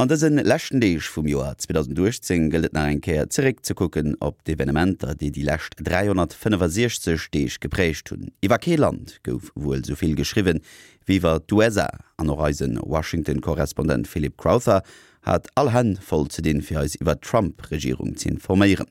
An dëse leschten Deeg vum Joer 2018 gëllt et nach eng Kéier zeréck ze kucken op d'Evenementer, déi déi lescht 365 Deeg geprägt hunn. Iwwer kee Land gouf wuel esou vill geschriwwen wéi iwwer d'USA. An och eise Washington-Korrespondent Philip Crowther hat all Hänn voll ze dinn, fir eis iwwer d'Trump-Regierung ze informéieren.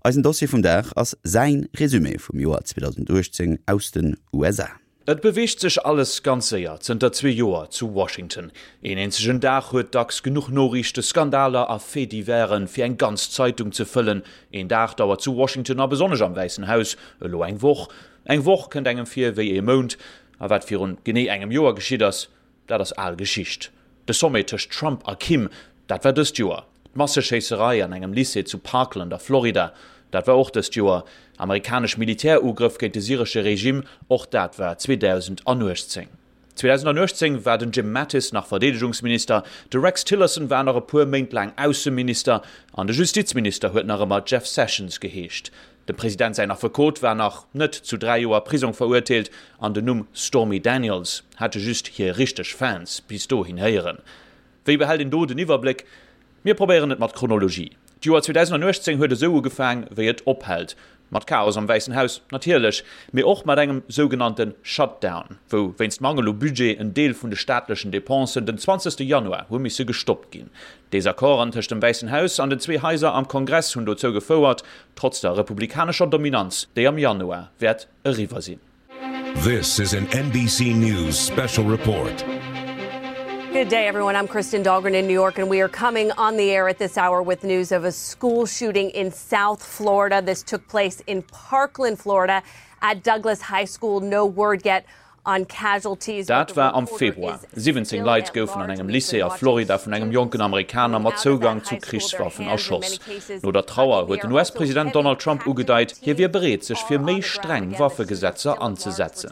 Eisen Dossier vum Dag ass säin Resumé vum Joer 2018 aus den USA. Et beweegt sech alles ganz séier zënter zwee Joer zu Washington. Een eenzegen Dag huet dacks genuch Noriichte, Skandaler a Faits-diversen, fir eng ganz Zeitung ze fëllen. Een Dag dauert zu Washington a besonnesch am Wäissen Haus elo eng Woch. Eng Woch kënnt engem vir wéi ee Mount. A wat virun genee engem Joer geschitt ass, Dat ass al Geschicht. De Sommet tëscht Trump a Kim, dat war dëst Joer. D'Masseschéisserei an engem Lycée zu Parkland a Florida, dat war och dëst Joer. Amerikanesch Militärugrëff géint de syresche Regime, och dat war 2018. 2018 war den Jim Mattis nach Verdeedegungsminister, de Rex Tillerson war nach e puer Méint laang Ausseminister an de Justizminister huet nach ëmmer Jeff Sessions geheescht. Dem President säin Affekot war nach net zu 3 Joer Prisong verurteelt an den Numm Stormy Daniels hate just hir richteg Fans bis dohin héieren. Wéi behält een do den Iwwerbléck? Mir probéieren et mat Chronologie. D'Joer 2018 huet esou ugefaang wéi et ophält, mat Chaos am Wäissen Haus natierlech, mee och mat engem sougenannte Shutdown, wou wéinst Mangel u Budget en Deel vun de staatlechen Depensen den 20 Januar hu misse gestoppt ginn. Desaccorden tëscht dem Wäissen Haus an den zwee Haiser am Kongress hunn dozou gefouert, trotz der republikanescher Dominanz, déi am Januar wäert eriwwer sinn. This is an NBC News special report. Good day, everyone. I'm Kristen Dahlgren in New York, and we are coming on the air at this hour with news of a school shooting in South Florida. This took place in Parkland, Florida, at Douglas High School. No word yet Dat war am Februar. 17 Leit goufen an engem Lycée a Florida vun engem jonken Amerikaner mat Zougang zu Krichswaffen erschoss. No der Trauer huet den US-President Donald Trump ugedeit, hie wier bereet, sech fir méi streng Waffegesetzer anzesetzen.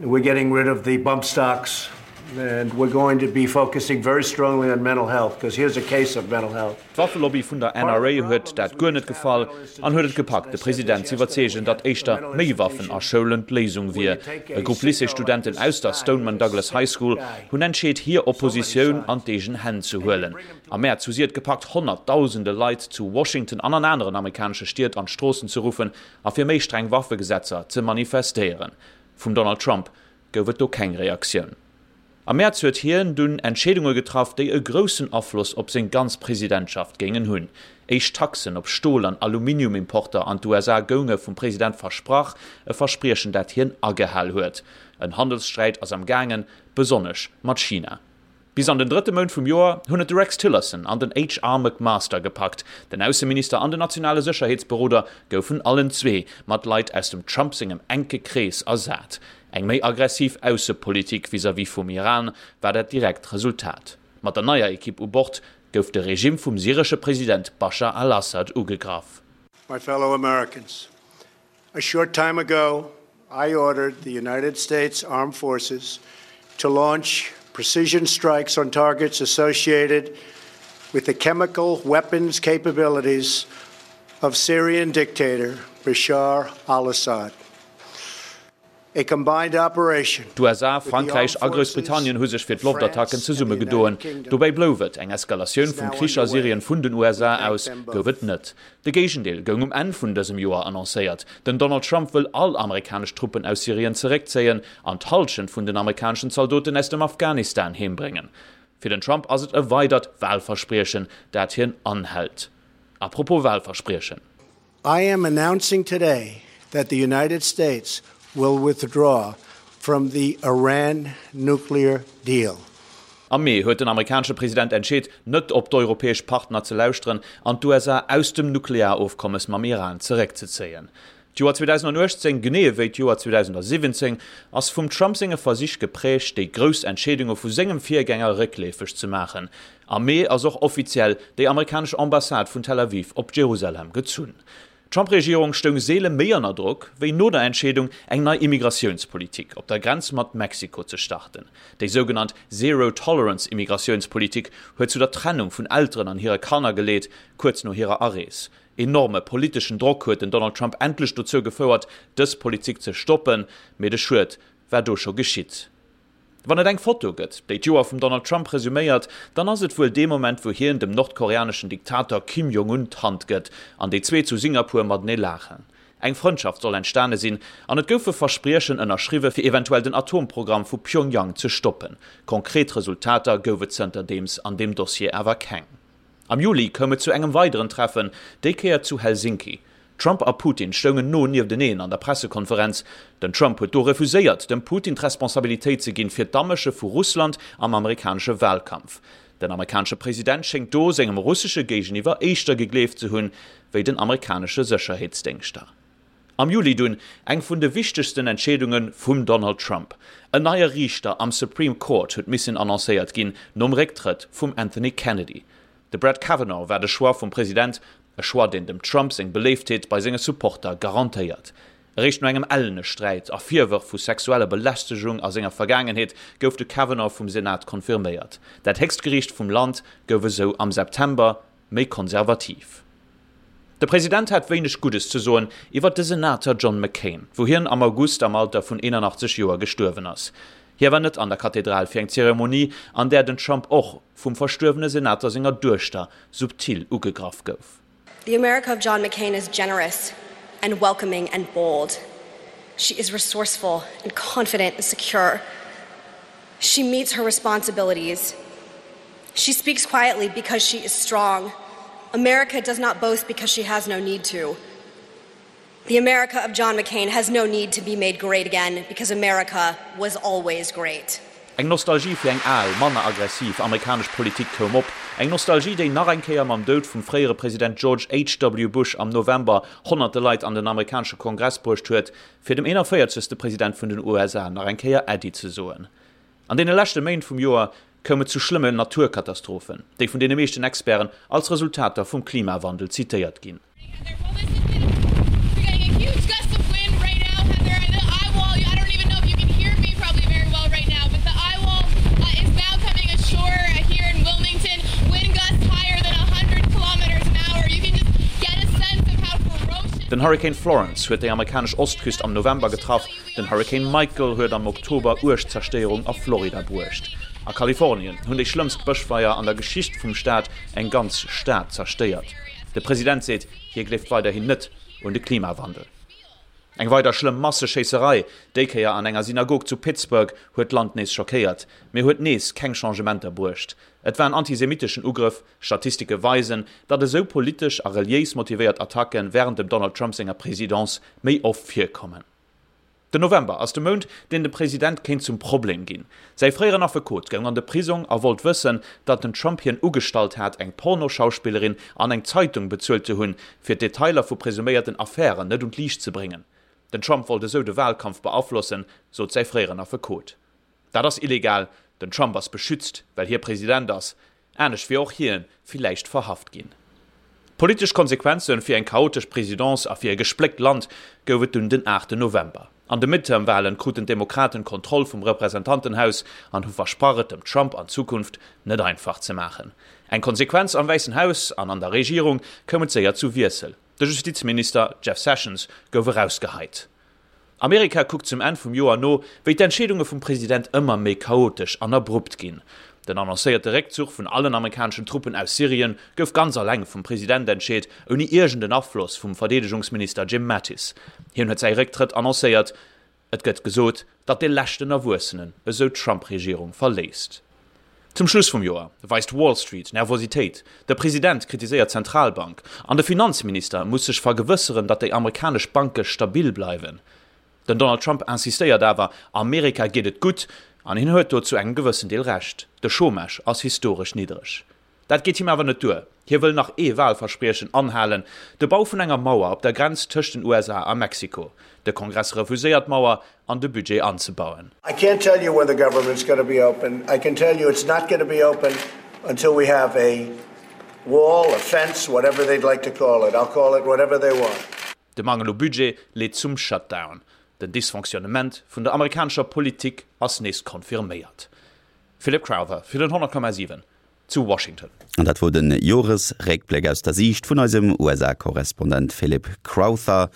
We're getting rid of the bump stocks and we're going to be focusing very strongly on mental health because here's a case of mental health. D'Waffelobby vun der NRA huet dat guer net gefall an huet et gepackt, de President z'iwwerzeegen, datt éischter méi Waffen a Schoulen d'Léisung wier. E Grupp Lycée-Studenten aus der Stoneman Douglas High School hunn entscheet, hir Oppositioun an d'eegen Hänn ze huelen. Am Mäerz hu si et gepackt, honnertdausende Leit zu Washington an an aneren amerikanesche Stied an d'Stroossen ze ruffen a fir méi streng Waffegesetzer ze manifestéieren. Vum Donald Trump gouf et do keng Reaktioun. Am Mäerz huet hien dunn Entscheedunge getraff, déi e groussen Afloss op seng ganz Presidentschaft géingen hunn. Éischt Taxen op Stol an Aluminiumimporter an d'USA gounge vum President versprach, e Verspriechen dat hien agehal huet. En Handelssträit ass am gaangen, besonnesch mat China. Bis an den drëtte Mount vum Joer hunn et de Rex Tillerson an den HR. McMaster gepackt. Den Ausseminister an den nationale Sécherheetsberoder goufen allen zwee mat Leit aus dem Trump sengem enke Krees ersat. Eng méi aggressiv Aussepolitik vis-à-vis vum Iran war dat direkt Resultat. Mat der neier Ekipp u Bord gouf de Regimm vum syresche President Baschar al-Assad ugegraff. My fellow Americans, A short time ago, I ordered the United States Armed Forces to launch precision strikes on targets associated with the chemical weapons capabilities of Syrian dictator Bashar al-Assad. A combined operation D'USA, Frankräich a Groussbritannien hu sech fir d'Loftattacken zesummegedoen. Dobäi blouf et, eng Eskalatioun vum Krich a Syrien vun den USA aus gouf et net. De Géigendeel goung um Enn vun dësem Joer annoncéiert. Den Donald Trump wëll all amerikanesch Truppen aus Syrien zeréckzéien an d'Hallschent vun den amerikaneschen Zaldoten aus dem Afghanistan heembréngen. Fir den Trump ass et e weidert Walverspriechen, dat hien anhält. A propos Walverspriechen. I am announcing today that the United States will withdraw from the Iran nuclear deal. Am Mee huet den amerikanesche President entscheet, net op d'europäesch Partner ze lauschteren an d'USA aus dem Nuklearofkommes mam Iran zeréckzezéien. D'Joer 2018, genee ewéi d'Joer 2017, ass vum Trump senge Versich geprägt, déi grouss Entscheedunge vu sengem Virgänger réckleefeg ze maachen. Am Mee ass och offiziell déi amerikanesch Ambassade vun Tel Aviv op Jerusalem gezunn. D'Trump-Regierung stoung seele méi ënner Drock, wéi no der Entscheedung, eng nei Immigratiounspolitik op der Grenz mat Mexiko ze starten. Déi sougenannt Zero-Tolerance-Immigratiounspolitik huet zu der Trennung vun Elteren an hire Kanner geleet, kuerz no hirer Arees. Enorme politeschen Drock huet den Donald Trump endlech dozou gefouert, dës Politik ze stoppen, mee de Schued war do scho geschitt. Wann et eng Foto gëtt, déi d'Joer vum Donald Trump resuméiert, dann ass et wuel dee Moment, wou hien dem nordkoreaneschen Diktator Kim Jong-un d'Hand gëtt an déi zwee zu Singapur matenee laachen. Eng Frëndschaft soll entstane sinn an et goufe Verspriechen ënnerschriwwe fir eventuell den Atomprogramm vu Pyongyang ze stoppen. Konkret Resultater gouf et zënterdeems an deem Dossier awer keng. Am Juli koum et zu engem weideren Treffen, déi Kéier zu Helsinki. Trump a Putin stoungen no niefteneen an der Pressekonferenz. Den Trump huet do refuséiert, dem Putin d'Responsabilitéit ze ginn fir d'Amësche vu Russland am amerikanesche Walkampf. Den amerikanesche President schéngt do sengem russesche Géigeniwwer éischter gegleeft ze hunn, wéi den amerikanesche Sécherheetsdéngschter. Am Juli dunn eng vun de wichtegsten Entscheedunge vum Donald Trump. En neie Riichter am Supreme Court huet missen annoncéiert ginn, nom Récktrëtt vum Anthony Kennedy. De Brett Kavanaugh war de Choix vum President, e Choix deen dem Trump seng Beléiftheet bei senge Supporter garantéiert. Eréischt no engem ellene Sträit a Virwërf vu sexueller Belästegung a senger Vergaangenheet gouf de Kavanaugh vum Senat confirméiert. Dat héchst Geriicht vum Land gouf esou am September méi konservativ. De President hat wéineg Guddes ze soen iwwer de Senater John McCain, wou hien am August am Alter vun 81 Joer gestuerwen ass. Hie war net an der Kathedral fir eng Zeremonie, an där den Trump och vum verstuerwene Senater senger Duechter subtil ugegraff gouf. The America of John McCain is generous and welcoming and bold. She is resourceful and confident and secure. She meets her responsibilities. She speaks quietly because she is strong. America does not boast because she has no need to. The America of John McCain has no need to be made great again because America was always great. Eng Nostalgie fir eng al, manner aggressiv amerikanesch Politik koum op. Eng Nostalgie, déi nach eng Kéier mam Doud vum fréiere President George HW. Bush am November honnerte Leit an den amerikanesche Kongress bruecht huet, fir dem 41. President vun den USA nach eng Kéier Äddi ze soen. An deene leschte Méint vum Joer koum et zu schlëmme Naturkatastrophen, déi vun deene meeschten Experten als Resultater vum Klimawandel zitéiert ginn. Den Hurrikan Florence huet déi amerikanesch Ostküst am November getraff. Den Hurrikan Michael huet am Oktober uerg Zerstéierung a Florida bruecht. A Kalifornien hunn déi schlëmmst Bëschfeier an der Geschicht vum Staat eng ganz Stad zerstéiert. De President seet, hie gleeft weiderhin net un de Klimawandel. Eng weider schlëmm Masseschéisserei, déi Kéier an enger Synagog zu Pittsburgh, huet d'Land nees schockéiert, mee huet nees keng Changementer bruecht. Et war en antisemitteschen Ugrëff. Statistike weisen, datt esou politesch a reliéis motivéiert Attacke wärend dem Donald Trump senger Presidence méi oft virkommen. Den November ass de Mount, deen dem President kéint zum Problem ginn. Säi fréieren Affekot goung an de Prisong a wollt wëssen, datt den Trump hien ugestallt hat, eng Pornoschauspillerin an eng Zeitung bezuelt ze hunn, fir d'Detailer vu presuméierten Affären net un d'Liicht ze bréngen. Den Trump wollt esou de Walkampf beaflossen, sot säi fréieren Affekot. Dat ass illegal, den Trump ass beschützt, well hie President ass, anescht wier och hie villäicht verhaft ginn. Politesch Konsequenze fir eng chaotesch Presidence a fir e gespléckt Land gouf et dunn den 8 November. An de Midterm-Walen kruten d'Demokraten d'Kontroll vum Representantenhaus an hu versprach et dem Trump an Zukunft net einfach ze maachen. Eng Konsequenz, Am Wäissen Haus an an der Regierung koum et séier zu Wiessel, de Justizminister Jeff Sessions gouf erausgeheit. Amerika kuckt zum Enn vum Joer no, wéi d'Entscheedunge vum President ëmmer méi chaotesch an abrupt ginn. Den annoncéierte Réckzuch vun allen amerikaneschen Truppen aus Syrien gouf ganz alleng vum President entscheet, ouni iergend en Afloss vum Verdeedegungsminister Jim Mattis. Hien huet säi Récktrëtt annoncéiert. Et gëtt gesot, datt dee leschten Erwuessenen esou d'Trump-Regierung verléisst. Zum Schluss vum Joer weist Wall Street Nervositéit, de President kritiséiert d'Zentralbank an de Finanzminister muss sech vergewësseren, datt déi amerikanesch Banke stabil bleiwen. Den Donald Trump insistéiert awer, Amerika geet et gutt an hien huet do zu engem gewëssen Deel Recht, de Chômage ass historesch niddreg. Dat geet him awer net duer, hie wëll nach ee Walverspriechen anhalen, de Bau vun enger Mauer op der Grenz tëscht den USA a Mexiko. De Kongress refuséiert d'Mauer an de Budget anzebauen. I can't tell you when the government's going to be open. I can tell you it's not going to be open until we have a wall, a fence, whatever they'd like to call it. I'll call it whatever they want. De Mangel u Budget leet zum Shutdown. Den Dysfonctionnement vun der amerikanescher Politik ass nees confirméiert. Philip Crowther fir den 100,7 zu Washington. An dat wor de Joresréckbléck aus der Siicht vun eisem USA-Korrespondent Philip Crowther.